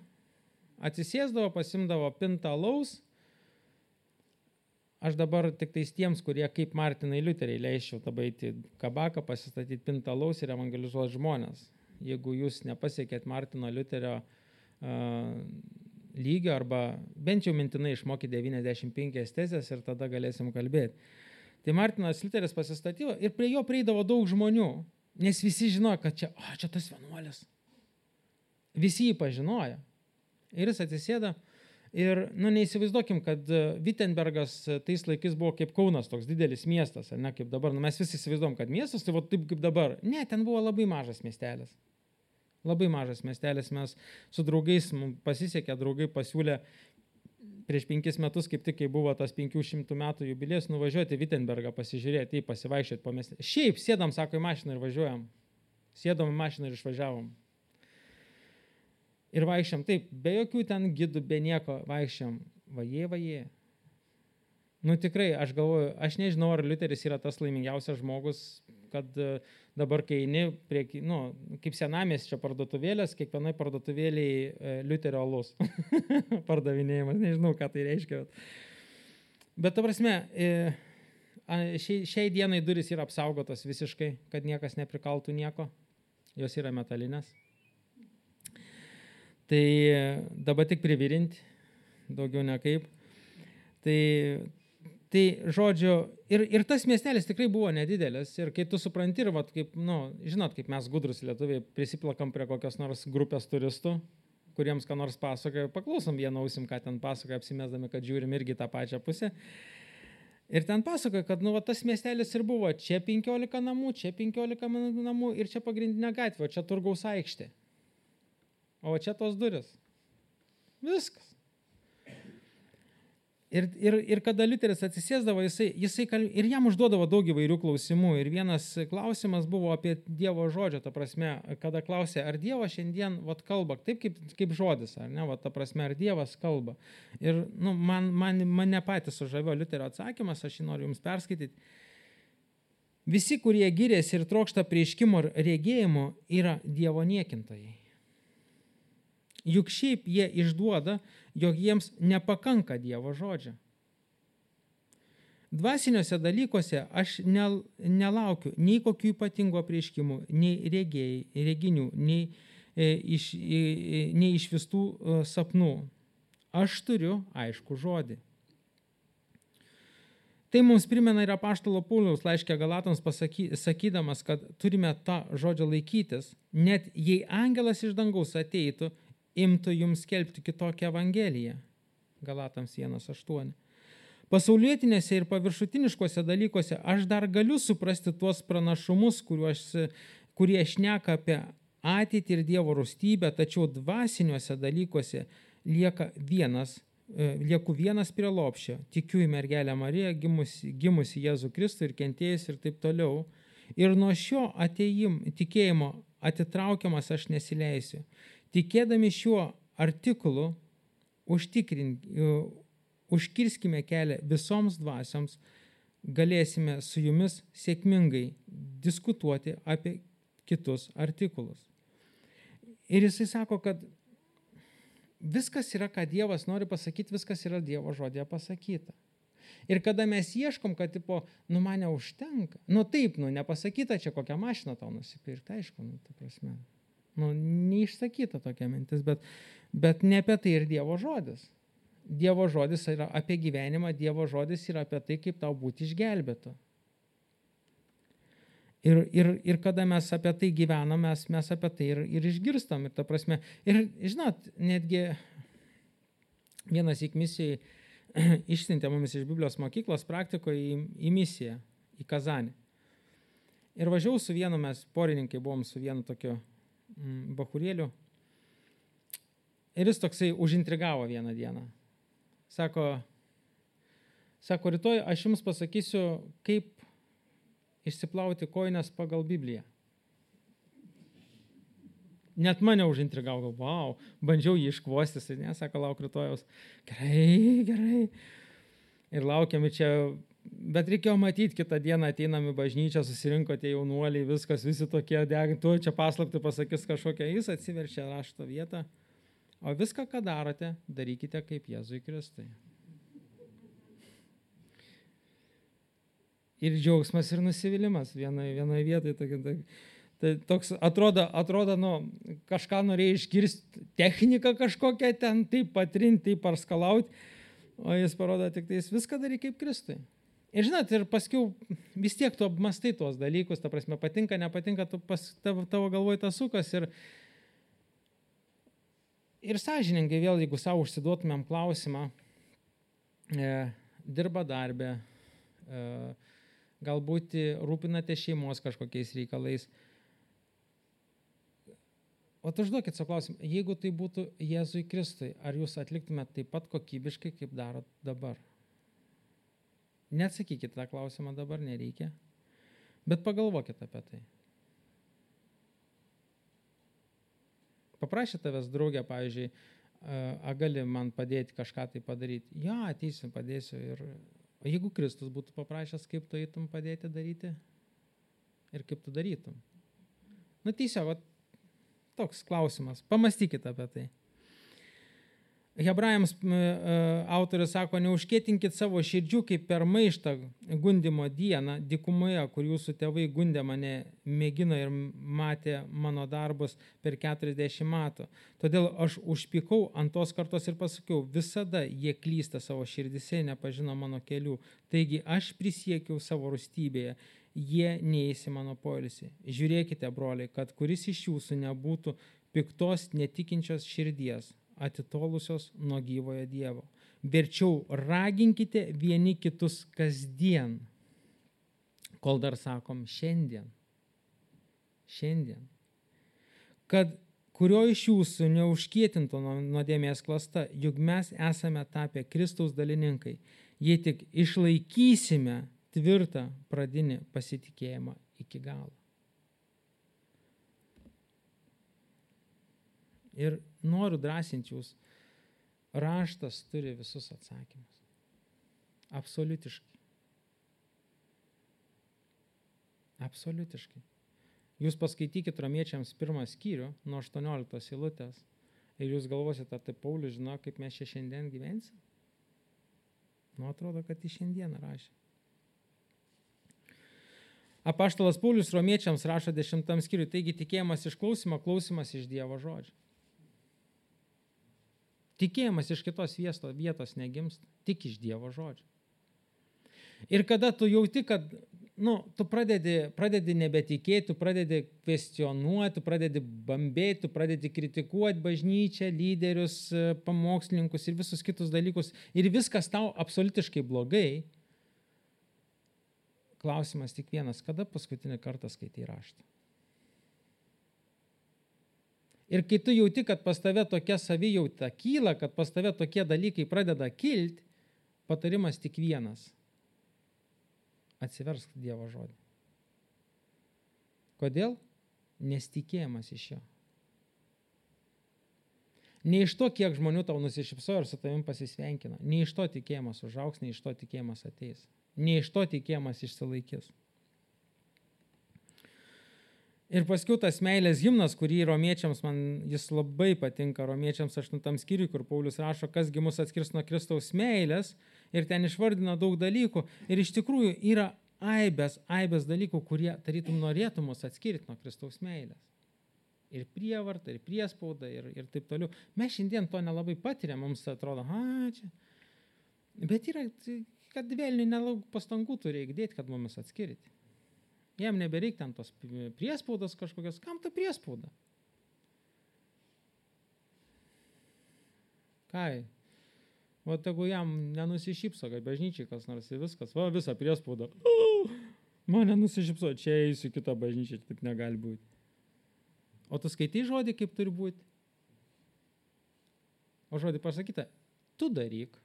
atsisėsdavo, pasimdavo pintą alaus. Aš dabar tik tais tiems, kurie kaip Martinai Liuteriai leisčiau tada eiti kabaką, pasistatyti pintą alaus ir evangelizuoti žmonės. Jeigu jūs nepasiekėt Martino Liuterio lygio arba bent jau mintinai išmokyti 95 tezės ir tada galėsim kalbėti. Tai Martinas Liuteris pasistatydavo ir prie jo prieidavo daug žmonių, nes visi žinojo, kad čia tas vienuolis. Visi jį pažinojo. Ir jis atsisėda ir, neįsivaizduokim, kad Wittenbergas tais laikais buvo kaip Kaunas, toks didelis miestas, ne kaip dabar. Mes visi įsivaizduom, kad miestas tai taip kaip dabar. Ne, ten buvo labai mažas miestelis. Labai mažas miestelis, mes su draugais, pasisekė, draugai pasiūlė prieš 5 metus, kaip tik, kai buvo tas 500 metų jubilėjus, nuvažiuoti Wittenbergą, pasižiūrėti, pasivaikščioti po miestą. Šiaip sėdam, sako, į mašiną ir važiuojam. Sėdom į mašiną ir išvažiavom. Ir vaikščiam, taip, be jokių ten gidų, be nieko, vaikščiam. Vajė. Tikrai, aš galvoju, aš nežinau, ar Liuteris yra tas laimingiausias žmogus, kad dabar, kai eini prie, kaip senamiesčio parduotuvėlės, kiekvienai parduotuvėliai Liuterio alus pardavinėjimas, nežinau, ką tai reiškia. Bet ta prasme, šiai dienai durys yra apsaugotos visiškai, kad niekas neprikaltų nieko, jos yra metalinės. Tai dabar tik privirinti, daugiau nekaip. Tai žodžiu, ir tas miestelis tikrai buvo nedidelis. Ir kai tu supranti, ir kaip, žinot, kaip mes gudrus lietuviai prisiplakam prie kokios nors grupės turistų, kuriems ką nors pasakoja, paklausom vieną ausim, ką ten pasakoja, apsimesdami, kad žiūrim irgi tą pačią pusę. Ir ten pasakoja, kad tas miestelis ir buvo, čia 15 namų, čia 15 namų ir čia pagrindinė gatvė, o čia Turgaus aikštė. O čia tos duris. Viskas. Ir kada Liuteris atsisėsdavo, jisai ir jam užduodavo daug įvairių klausimų. Ir vienas klausimas buvo apie Dievo žodžio, ta prasme, kada klausė, ar Dievas šiandien kalba, taip kaip žodis, ar ne, ta prasme, ar Dievas kalba. Ir mane patys sužavėjo Liuterio atsakymas, aš jį noriu jums perskaityti. Visi, kurie giriasi ir trokšta prieškimo ir regėjimo, yra Dievo niekintojai. Juk šiaip jie išduoda, jog jiems nepakanka Dievo žodžio. Dvasiniuose dalykuose aš nelaukiu nei kokių ypatingų apreiškimų, nei reginių, nei išvistų sapnų. Aš turiu aišku žodį. Tai mums primena ir apaštalo Pauliaus laiške Galatams sakydamas, kad turime tą žodžio laikytis, net jei angelas iš dangaus ateitų, imtų jums skelbti kitokią evangeliją. Galatams 1:8. Pasaulietinėse ir paviršutiniškose dalykuose aš dar galiu suprasti tuos pranašumus, kurie šneka apie ateitį ir Dievo rūstybę, tačiau dvasiniuose dalykuose lieku vienas prie lopščio. Tikiu į mergelę Mariją, gimusi Jėzų Kristų ir kentėjus ir taip toliau. Ir nuo šio tikėjimo atitraukiamas aš nesileisiu. Tikėdami šiuo artikulu užkirskime kelią visoms dvasioms, galėsime su jumis sėkmingai diskutuoti apie kitus artikulus. Ir jisai sako, kad viskas yra, ką Dievas nori pasakyti, viskas yra Dievo žodėje pasakyta. Ir kada mes ieškom, kad man neužtenka, taip, nepasakyta čia kokią mašiną tau nusipirkti, aišku, ta prasme. Neišsakyta tokia mintis, bet ne apie tai ir Dievo žodis. Dievo žodis yra apie gyvenimą, Dievo žodis yra apie tai, kaip tau būti išgelbėtu. Ir kada mes apie tai gyvenam, mes apie tai ir išgirstam. Ir ta prasme, ir žinot, netgi vienas misijai išsiuntė mumis iš Biblijos mokyklos praktikoje į misiją, į Kazanį. Ir važiavau su vienu, mes porininkai buvom su vienu tokiu bachurėliu. Ir jis toksai užintrigavo vieną dieną. Sako, rytoj aš jums pasakysiu, kaip išsiplauti kojines pagal Bibliją. net mane užintrigavo, wow, bandžiau jį iškvostis, ne, sako, lauk rytojaus. Gerai. Ir laukiami čia, bet reikėjo matyti, kitą dieną ateinam į bažnyčią, susirinko tie jaunuoliai, viskas, visi tokie tu čia paslaptį pasakys kažkokią, jis atsiverčia rašto vietą, o viską, ką darote, darykite kaip Jėzui Kristui. Ir džiaugsmas, ir nusivylimas vienoje vietoje. Tai toks atrodo, kažką norėjai išgirsti, techniką kažkokią ten, taip patrinti, taip parskalauti, o jis parodo tik tai, jis viską darai kaip Kristui. Ir žinot, ir paskiau vis tiek tu apmastai tuos dalykus, ta prasme, patinka, nepatinka, tavo galvoj tas sukas. Ir sąžiningai vėl, jeigu savo užsiduotumėm klausimą, dirba darbę, galbūt rūpinate šeimos kažkokiais reikalais. O užduokit savo klausimą, jeigu tai būtų Jėzui Kristui, ar jūs atliktumėte taip pat kokybiškai, kaip darot dabar? Neatsakykite tą klausimą dabar, nereikia, bet pagalvokite apie tai. Paprašė tavęs draugė, pavyzdžiui, gali man padėti kažką tai padaryti? Ja, ateisiu, padėsiu. O jeigu Kristus būtų paprašęs, kaip tu eitum padėti daryti ir kaip tu darytum? Tiesiog, toks klausimas. Pamastykite apie tai. Hebrajams autorius sako, neužkėtinkit savo širdžių kaip per maištą gundimo dieną dykumoje, kur jūsų tėvai gundė mane, mėgino ir matė mano darbus per 40 metų. Todėl aš užpykau ant tos kartos ir pasakiau, visada jie klysta savo širdise, nepažino mano kelių. Taigi aš prisiekiau savo rūstybėje, jie neįs į mano poilsį. Žiūrėkite, broliai, kad kuris iš jūsų nebūtų piktos netikinčios širdies, atitolusios nuo gyvojo Dievo. Verčiau raginkite vieni kitus kasdien, kol dar sakom šiandien, kad kurio iš jūsų neužkietintų nuodėmės klasta, juk mes esame tapę Kristaus dalininkai, jei tik išlaikysime tvirtą pradinį pasitikėjimą iki galo. Ir noriu drąsinti jūs, raštas turi visus atsakymus. Absoliutiškai. Jūs paskaitykite Romiečiams 1 skyrių nuo 18 eilutės ir jūs galvosite, tai Paulius žino, kaip mes čia šiandien gyvensim? Atrodo, kad į šiandieną rašė. Apaštalas Paulius Romiečiams rašo 10 skyriui, taigi tikėjimas iš klausimo, klausimas iš Dievo žodžio. Tikėjimas iš kitos vietos negimsta, tik iš Dievo žodžio. Ir kada tu jauti, kad tu pradedi nebetikėti, tu pradedi kvestionuoti, tu pradedi bambėti, tu pradedi kritikuoti bažnyčią, lyderius, pamokslininkus ir visus kitus dalykus, ir viskas tau absoliutiškai blogai, klausimas tik vienas, kada paskutinį kartą skaitai raštą? Ir kai tu jauti, kad pas tave tokia savijauta kyla, kad pas tave tokie dalykai pradeda kilti, patarimas tik vienas. Atsiversk Dievo žodį. Kodėl? Nes tikėjimas iš jo. Ne iš to, kiek žmonių tau nusišypsojo ir su tavim pasisveikina. Ne iš to tikėjimas užaugs, ne iš to tikėjimas ateis. Ne iš to tikėjimas išsilaikys. Ir paskiau tas meilės himnas, kurį Romiečiams, man jis labai patinka, Romiečiams 8 skyriui, kur Paulius rašo, kasgi mus atskirs nuo Kristaus meilės, ir ten išvardina daug dalykų. Ir iš tikrųjų yra aibės dalykų, kurie tarytum norėtų mus atskirti nuo Kristaus meilės. Ir prievarta, ir priespauda, ir taip toliau. Mes šiandien to nelabai patiriam, mums atrodo, čia. Bet yra, kad vėliniai nelauk pastangų turi įdėti, kad mumis atskirti. Jam nebereik ten tos priespaudos kažkokios. Kam ta priespauda? Kai? O tegu jam nenusišypso, kad bažnyčiai kas nors ir viskas. Visą priespaudą. Man nenusišypso, čia eisiu kitą bažnyčią, taip negali būti. O tu skaitai žodį, kaip turi būti? O žodį pasakyta, tu daryk.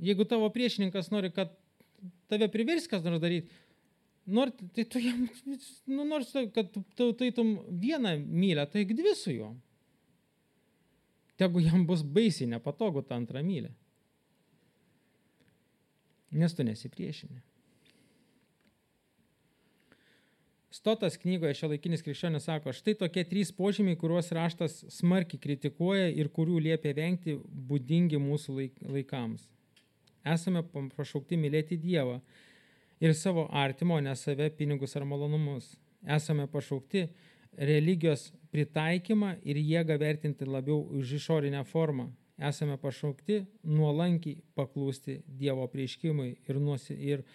Jeigu tavo priešininkas nori, kad tave privers kas nors daryti, Tai tu jam, nors kad tu taitum vieną mylę, tai 2 su juo. Tegu jam bus baisiai nepatogu tą antrą mylę. Nes tu nesipriešini. Stotas knygoje Šiuolaikinis krikščionis sako, štai tokie 3 požymiai, kuriuos raštas smarkiai kritikuoja ir kurių liepia vengti būdingi mūsų laikams. Esame pašaukti mylėti Dievą ir savo artimo, ne save, pinigus ar malonumus. Esame pašaukti religijos pritaikymą ir jėgą vertinti labiau už išorinę formą. Esame pašaukti nuolankiai paklūsti Dievo apreiškimui ir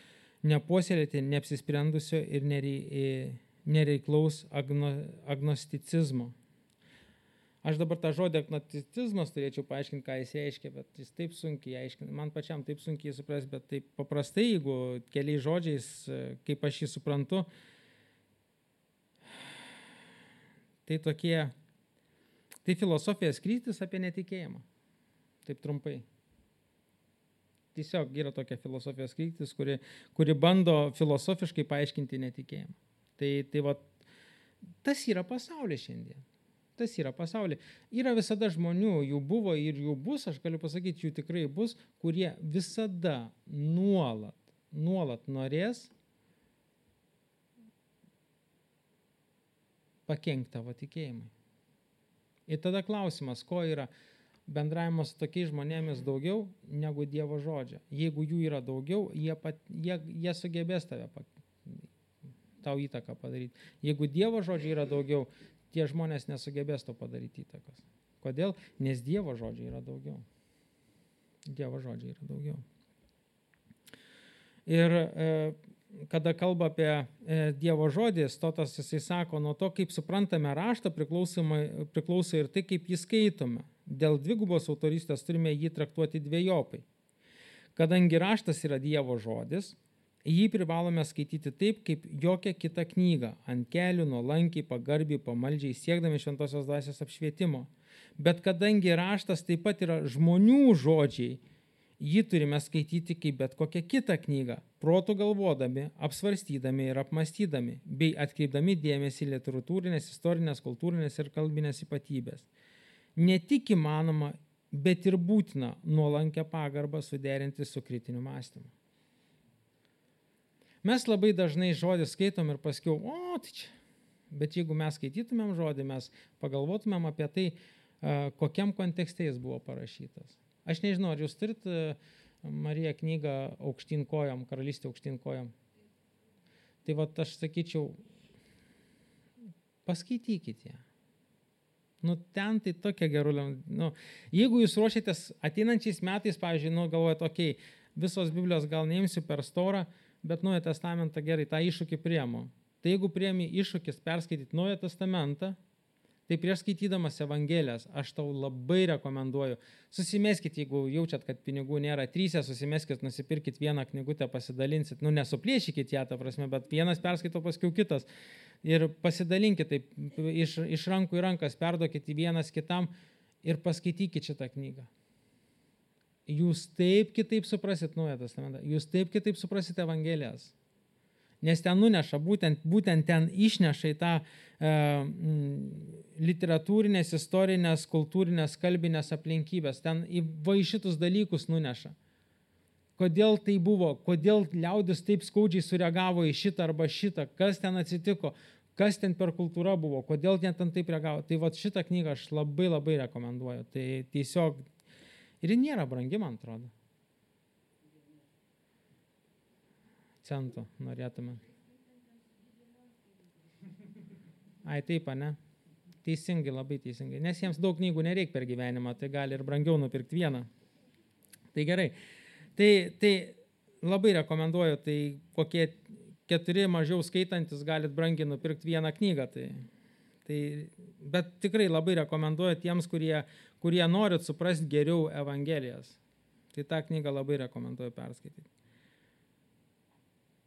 nepuoselėti neapsisprendusio ir nereiklaus agnosticizmo. Aš dabar tą žodį agnosticizmas turėčiau paaiškinti, ką jis reiškia, bet jis taip sunkiai aiškina. Man pačiam taip sunkiai supras, bet taip paprastai, jeigu keliais žodžiais, kaip aš jį suprantu, tai filosofijos kryptis apie netikėjimą. Taip trumpai. Tiesiog yra tokia filosofijos kryptis, kuri bando filosofiškai paaiškinti netikėjimą. Tai va, tas yra pasaulis šiandien. Tas yra pasaulis. Yra visada žmonių, jų buvo ir jų bus, aš galiu pasakyti, jų tikrai bus, kurie visada nuolat norės pakenkti tavo tikėjimui. Ir tada klausimas, ko yra bendravimas su tokiais žmonėmis daugiau negu Dievo žodžio. Jeigu jų yra daugiau, jie sugebės tau įtaką padaryti. Jeigu Dievo žodžio yra daugiau, tie žmonės nesugebės to padaryti įtakos. Kodėl? Nes Dievo žodžio yra daugiau. Dievo žodžio yra daugiau. Ir kada kalba apie Dievo žodį, Stotas jisai sako, nuo to, kaip suprantame raštą, priklauso ir tai, kaip jį skaitome. Dėl dvigubos autorystės turime jį traktuoti dvejopai. Kadangi raštas yra Dievo žodis, jį privalome skaityti taip, kaip jokią kitą knygą, ant kelių, nuolankiai, pagarbiai, pamaldžiai, siekdami šventosios dvasios apšvietimo. Bet kadangi raštas taip pat yra žmonių žodžiai, jį turime skaityti kaip bet kokią kitą knygą, protų galvodami, apsvarstydami ir apmastydami, bei atkreipdami dėmesį į literatūrinės, istorinės, kultūrinės ir kalbinės ypatybės. Ne tik įmanoma, bet ir būtina nuolankę pagarbą suderinti su kritiniu mąstymu. Mes labai dažnai žodį skaitom ir paskiau, tai čia. Bet jeigu mes skaitytumėm žodį, mes pagalvotumėm apie tai, kokiam kontekste jis buvo parašytas. Aš nežinau, ar jūs turit, Marija, knygą Aukštyn kojom, Karalystė aukštyn kojom. Tai va, aš sakyčiau, paskaitykit ją. Ten tai tokia gerulė. Jeigu jūs ruošiatės ateinančiais metais, pavyzdžiui, galvojat, visos Biblijos gal neimsiu per storą, bet Naują testamentą gerai, tą iššūkį priemu. Tai jeigu priemi iššūkis perskaityti Naują testamentą, tai prieš skaitydamas Evangelijas, aš tau labai rekomenduoju, susimeskit, jeigu jaučiat, kad pinigų nėra, 3, susimeskit, nusipirkit vieną knygutę, pasidalinsit, nesuplėšykit ją, ta prasme, bet vienas perskaito, paskiau kitas. Ir pasidalinkit taip, iš rankų į rankas, perduokit į vienas kitam ir paskaitykit šitą knygą. Jūs taip kitaip suprasit Naują testamentą, jūs taip kitaip suprasit Evangelijas. Nes ten nuneša, būtent ten išneša į tą literatūrinės, istorinės, kultūrinės, kalbinės aplinkybės. Ten į šitus dalykus nuneša. Kodėl tai buvo, kodėl liaudis taip skaudžiai sureagavo į šitą arba šitą, kas ten atsitiko, kas ten per kultūra buvo, kodėl ten taip reagavo. Tai va šitą knygą aš labai labai rekomenduoju. Tai tiesiog ir ji nėra brangi, man atrodo. Centų norėtume. Taip, ne? Teisingai, labai teisingai. Nes jiems daug knygų nereikia per gyvenimą, tai gali ir brangiau nupirkti vieną. Tai gerai. Tai labai rekomenduoju, tai kokie 4 mažiau skaitantis galit brangiai nupirkti vieną knygą. Bet tikrai labai rekomenduoju tiems, kurie norit suprasti geriau Evangelijas. Tai tą knygą labai rekomenduoju perskaityti.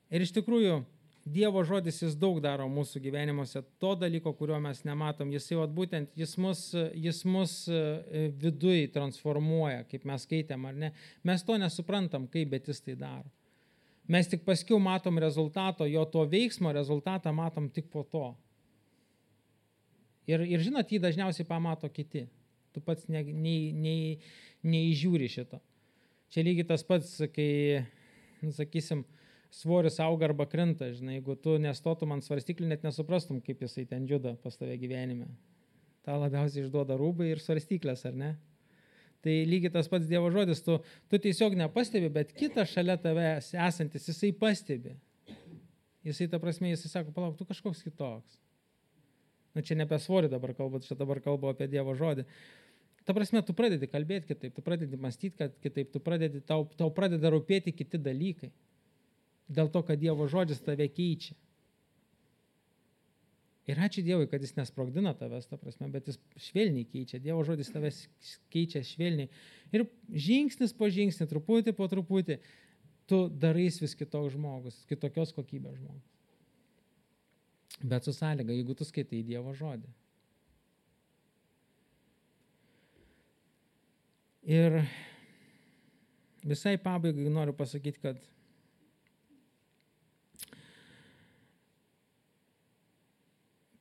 Ir iš tikrųjų, Dievo žodis jis daug daro mūsų gyvenimuose, to dalyko, kurio mes nematom. Jis mus viduj transformuoja, kaip mes skaitėm, ar ne. Mes to nesuprantam, kaip, bet jis tai daro. Mes tik paskiau matom rezultato, jo to veiksmo rezultatą matom tik po to. Ir žinot, jį dažniausiai pamato kiti. Tu pats neįžiūri šito. Čia lygiai tas pats, kai, sakysim, svoris auga arba krenta, žinai, jeigu tu nestotum ant svarstyklių, net nesuprastum, kaip jisai ten juda pas tave gyvenime. Ta labiausiai išduoda rūbai ir svarstyklės, ar ne? Tai lygiai tas pats Dievo žodis, tu tiesiog nepastebi, bet kitas šalia tave esantis, jisai pastebi. Jisai, ta prasme, jisai sako, palauk, tu kažkoks kitoks. Nu, čia ne apie svorį dabar kalbu, čia dabar kalbu apie Dievo žodį. Ta prasme, tu pradedi kalbėti kitaip, tu pradedi mąstyti kitaip, tau pradeda rūpėti kiti dalykai. Dėl to, kad Dievo žodis tave keičia. Ir ačiū Dievui, kad jis nesprogdina tavęs, ta prasme, bet jis švelniai keičia. Dievo žodis tavęs keičia švelniai. Ir žingsnis po žingsnį, truputį po truputį, tu darais vis kitoks žmogus, kitokios kokybės žmogus. Bet su sąlyga, jeigu tu skaitai Dievo žodį. Ir visai pabaigai noriu pasakyti, kad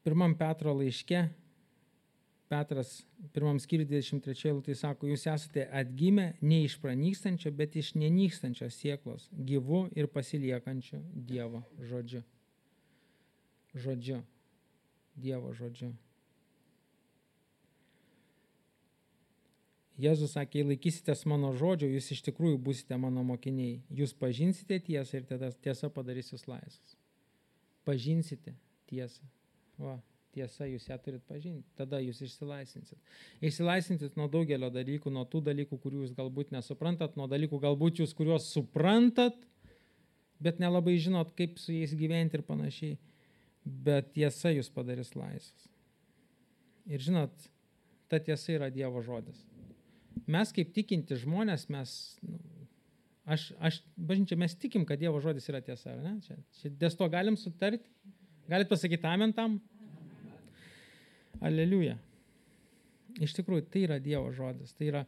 pirmam Petro laiške, Petras pirmam skyriui 23 eilutėje sako, jūs esate atgimę ne iš pranykstančio, bet iš nenykstančios sėklos, gyvu ir pasiliekančiu Dievo žodžiu. Dievo žodžiu. Jėzus sakė, jei laikysitės mano žodžio, jūs iš tikrųjų būsite mano mokiniai. Jūs pažinsite tiesą ir tada tiesa padarys jūs laisvus. Pažinsite tiesą. Va, tiesa, jūs ją turit pažinti. Tada jūs išsilaisvinsit. Išsilaisvinsit nuo daugelio dalykų, nuo tų dalykų, kurių jūs galbūt nesuprantat, nuo dalykų galbūt jūs, kuriuos suprantat, bet nelabai žinot, kaip su jais gyventi ir panašiai. Bet tiesa jūs padarys laisvus. Ir žinot, ta tiesa yra Dievo žodis. Mes kaip tikinti žmonės, bažnyčia, mes tikim, kad Dievo žodis yra tiesa, ar ne? Čia dėl to galim sutarti? Galit pasakyti amen tam? Aleliuja. Iš tikrųjų, tai yra Dievo žodis. Tai yra,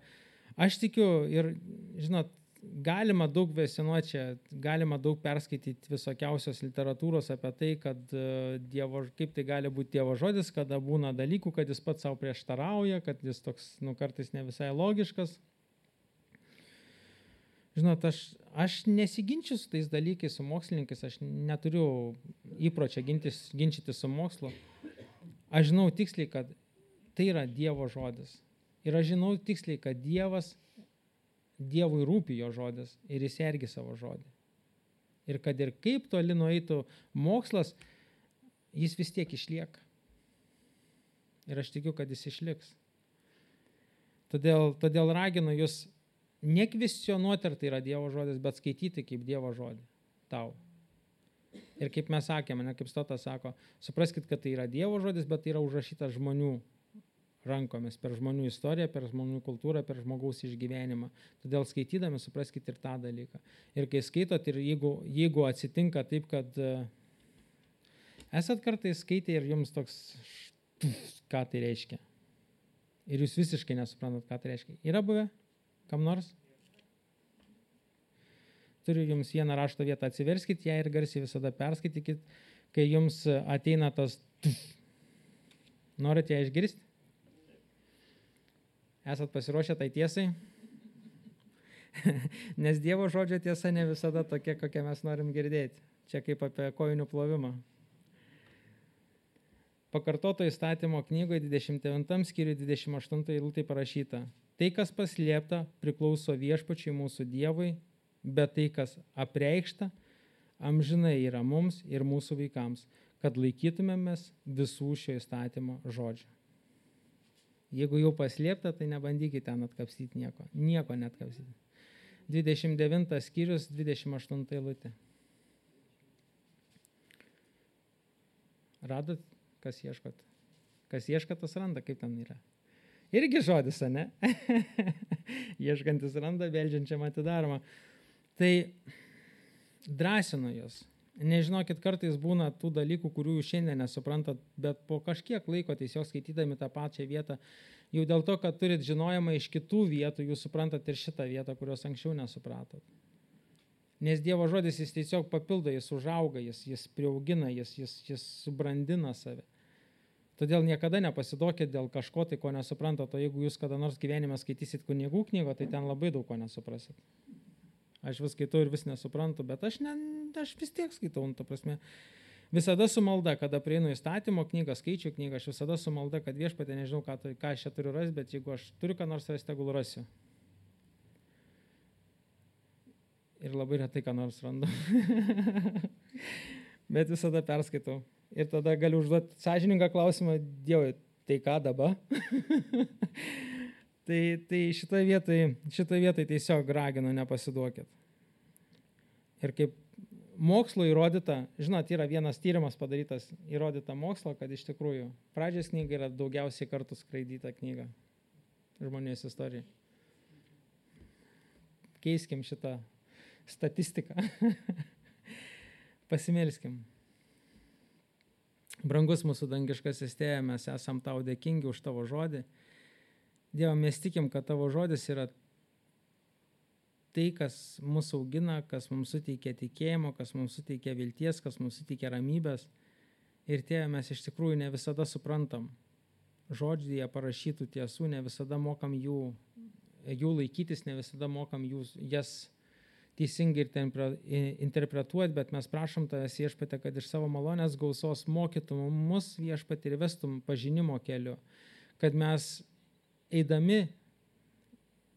aš tikiu ir, žinot, galima daug kvestionuoti čia, galima daug perskaityti visokiausios literatūros apie tai, kad kaip tai gali būti Dievo žodis, kada būna dalykų, kad jis pats savo prieštarauja, kad jis toks, kartais ne visai logiškas. Žinot, aš nesiginčiu su tais dalykais, su mokslininkais, aš neturiu įpročio ginčyti su mokslu. Aš žinau tiksliai, kad tai yra Dievo žodis. Ir aš žinau tiksliai, kad Dievui rūpi jo žodis ir jis sergi savo žodį. Ir kad ir kaip toli nueitų mokslas, jis vis tiek išlieka. Ir aš tikiu, kad jis išliks. Todėl raginu jūs nekvestionuoti, ar tai yra Dievo žodis, bet skaityti kaip Dievo žodį tau. Ir kaip mes sakėme, kaip Stotas sako, supraskit, kad tai yra Dievo žodis, bet tai yra užrašytas žmonių rankomis, per žmonių istoriją, per žmonių kultūrą, per žmogaus išgyvenimą. Todėl skaitydami supraskit ir tą dalyką. Ir kai skaitot, ir jeigu atsitinka taip, kad esat kartais skaitę ir jums toks, ką tai reiškia. Ir jūs visiškai nesuprantat, ką tai reiškia. Yra buvę? Kam nors? Turiu jums vieną rašto vietą, atsiverskit ją ir garsiai visada perskaitykit, kai jums ateina tas Norit ją išgirsti? Esat pasiruošę tai tiesai? Nes Dievo žodžio tiesa ne visada tokia, kokią mes norim girdėti. Čia kaip apie kojinių plovimą. Pakartoto įstatymo knygoje 29 skyriui 28 eilutė parašyta. Tai, kas paslėpta, priklauso viešpačiui mūsų Dievui, bet tai, kas apreikšta, amžinai yra mums ir mūsų vaikams, kad laikytumėmės visų šio įstatymo žodžių. Jeigu jau paslėpta, tai nebandykite ten atkapstyti nieko. Nieko netkapstyti. 29 skyrius, 28 eilutė. Radot, kas ieškot? Kas ieško, tas randa, kaip ten yra. Irgi žodis, ne? Ieškantis randa, beldžiančiam atidaroma. Tai drąsinu jūs. Nežinokit, kartais būna tų dalykų, kurių jūs šiandien nesuprantat, bet po kažkiek laiko tiesiog skaitydami tą pačią vietą, jau dėl to, kad turit žinojimą iš kitų vietų, jūs suprantat ir šitą vietą, kurios anksčiau nesupratot. Nes Dievo žodis jis tiesiog papildo, jis užauga, jis priaugina, jis subrandina save. Todėl niekada nepasiduokit dėl kažko, tai ko nesuprantat, o jeigu jūs kada nors gyvenime skaitysit kunigų knygą, tai ten labai daug ko nesuprasit. Aš vis skaitau ir vis nesuprantu, bet aš vis tiek skaitau, ta prasme. Visada su malda, kada prieinu įstatymo knygą, skaičių knygą, aš visada su malda, kad Viešpatie, nežinau, ką aš čia turiu rasti, bet jeigu aš turiu ką nors rasti, tegul rasiu. Ir labai retai ką nors randu. Bet visada perskaitau. Ir tada galiu užduoti sąžiningą klausimą, Dievui, tai ką dabar? tai šitoje vietoje tiesiog raginu, nepasiduokit. Ir kaip mokslo įrodyta, žinot, yra vienas tyrimas padarytas, įrodyta mokslo, kad iš tikrųjų pradžios knyga yra daugiausiai kartų skraidyta knyga žmonijos istorijai. Keiskim šitą statistiką. Pasimelskim. Brangus mūsų dangiškasis Tėve, mes esam tau dėkingi už tavo žodį. Dieve, mes tikim, kad tavo žodis yra tai, kas mūsų augina, kas mums suteikia tikėjimo, kas mums suteikia vilties, kas mums suteikia ramybės. Ir Tėve, mes iš tikrųjų ne visada suprantam žodžyje parašytų tiesų, ne visada mokam jų laikytis, ne visada mokam jas teisingai interpretuoti, bet mes prašom tavęs, Viešpatie, kad iš savo malonės gausos mokytum mus, Viešpatie, ir vestum pažinimo keliu, kad mes eidami,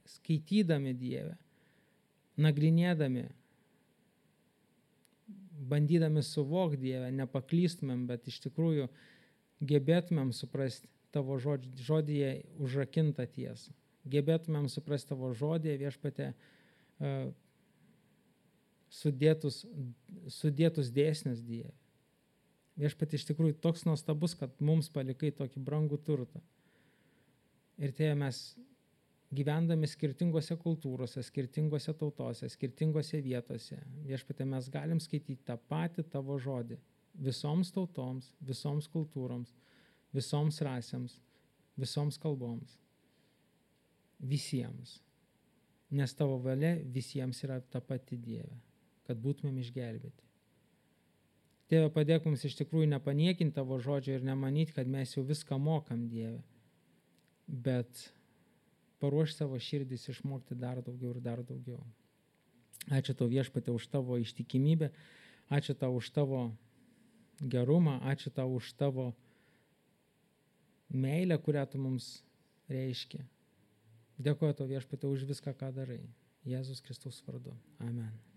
skaitydami Dievę, nagrinėdami, bandydami suvokti Dievę, nepaklystumėm, bet iš tikrųjų gebėtumėm suprasti tavo žodyje užrakintą tiesą. Gebėtumėm suprasti tavo žodyje, Viešpatie, sudėtus dėsnius Dieve. Viešpatie, iš tikrųjų toks nuostabus, kad mums palikai tokį brangų turtą. Ir Tėve, mes gyvendami skirtingose kultūrose, skirtingose tautose, skirtingose vietose, Viešpatie, mes galim skaityti tą patį tavo žodį visoms tautoms, visoms kultūroms, visoms rasėms, visoms kalboms. Visiems. Nes tavo valia visiems yra ta pati Dieve, kad būtumėm išgelbėti. Tėve, padėk mums iš tikrųjų nepaniekinti tavo žodžio ir nemanyti, kad mes jau viską mokam, Dieve, bet paruoš savo širdis išmokti dar daugiau ir dar daugiau. Ačiū tau, Viešpatie, už tavo ištikimybę, ačiū tau už tavo gerumą, ačiū tau už tavo meilę, kurią tu mums reiškia. Dėkoju tau, Viešpatie, už viską, ką darai. Jėzus Kristaus vardu. Amen.